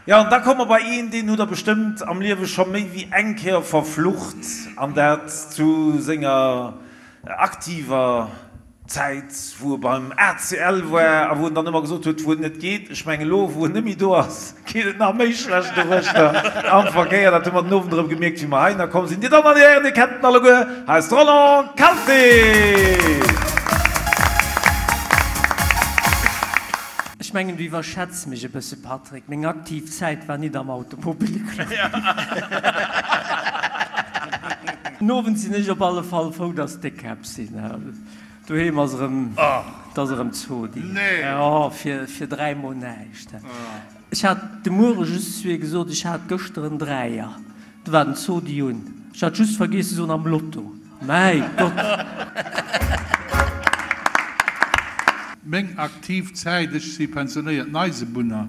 Jo, an da komme mer bei een, deen hutt Der bestëmmt am Liewe scho méi wéi eng Kéier verflucht, an dat zu senger aktiver Zäit, wou e beim ACL war a wou en dann ëmmer gesot huet, wou et net geet. Ech mengen, elo, wou en net méi do ass, geet et nach méi schlecht doruechter am Verkéier. Dat hu mer den Owend erëm gemierkt, wéi mer heihinner komm sinn. Dir Dammen an Dir Hären, Dir kennt en alleguer, hei ass de Roland Kalté! Ech mengen, du iwwerschätz mech e bësse, Patrick. Meng aktiv Zäit war nit am Automobilclub. Den Owend sinn ech op alle Fall frou, dass d'Déckkäpp sinn. Doheem ass erëm, 't ass erëm Zodi. Jo, fir 3 mol näischt. Ech hat de Muere just zu hir gesot, ech hat gëschter en Dräier. Do war den Zodi un. Ech hat just vergiess ze soen, am Lotto. Mäi Gott! Meng aktiv Zäit, ech si pensionéierten Eisebunner.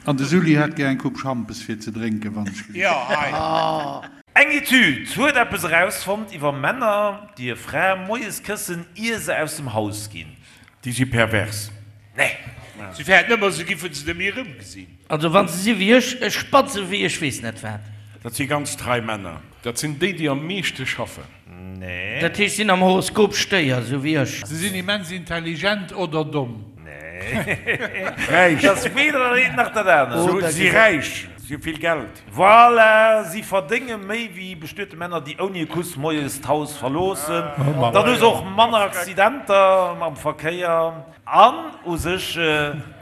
An de Sully hätt gär eng Coupe Schampes fir ze drénken, wann ech gelift. Eng Etüd huet eppes erausfonnt iwwer Männer, déi hir Fra moies këssen, ier se aus dem Haus ginn. Déi si pervers. Nee. Si fäerten ëmmer, se giffen se net méi erëmgesinn. Also wann se si wéi ech, ech spatze wéi ech weess net wat. Dat si ganz trei Männer. Dat sinn déi, déi am meeschte schaffen. Nee. Dat heescht, sinn am Horoskop Stéier, sou wéi ech. Se sinn immens intelligent oder domm. Nee. Räich. Dat ass weder dat eent nach dat anert. Si si räich, si hu vill Geld. Voilà, si verdénge méi wéi bestuete Männer, déi ouni e Kuss moies d'Haus verloossen. Dann hu se och manner Accidenter am Verkéier an u sech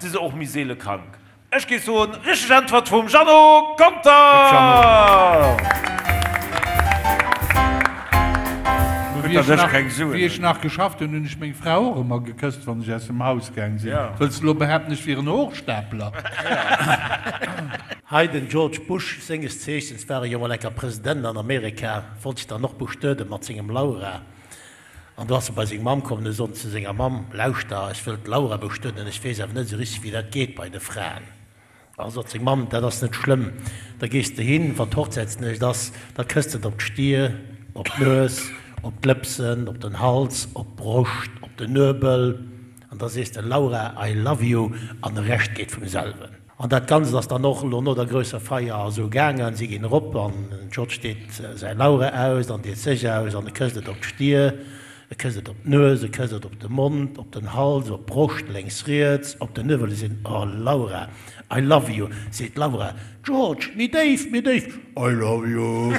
si se och méi seele krank. Ech géif soen, richteg Äntwert vum Jeannot Conter! Wéi ech nach geschafft hunn, hunn ech meng Fra och ëmmer gekësst, wann ech aus dem Haus gaang sinn. Wëlls de elo behaapten, ech wier en Hochstapler? Hei den George Bush, senges Zeechens war e jo mol enker President an Amerika, wollt sech dann och bestueden mat sengem Laura. An do ass e bei seng Mamm komm an huet gesot zu senger Mamm, Lauschter, ech wëll d'Laura bestueden, ech weess awer net esou richteg wéi dat geet bei de Fraen. A sot seng Mamm, Dat ass net schlëmm, da gees de hin, wann d'Hochzäitsnuecht ass, da kësst de et op d'Stier, op d'Nues, op d'Lëpsen, op den Hals, op d'Broscht, op den Nuebel, an da sees de, Laura, I love you, an de Rescht geet vum selwen. An dat Ganzt ass dann och elo no der grousser Feier esou gaangen, si ginn erop an den George deet säi Laura aus an deet sech aus an e kësst et op d'Stier, e kësst et op d'Nues, e kësst et op de Mond, op den Hals, op d'Broscht, lénks, riets, op den Nuewel. E seet, Oh Laura, I love you. Seet d'Laura, George, méi déif, méi déif, I love you.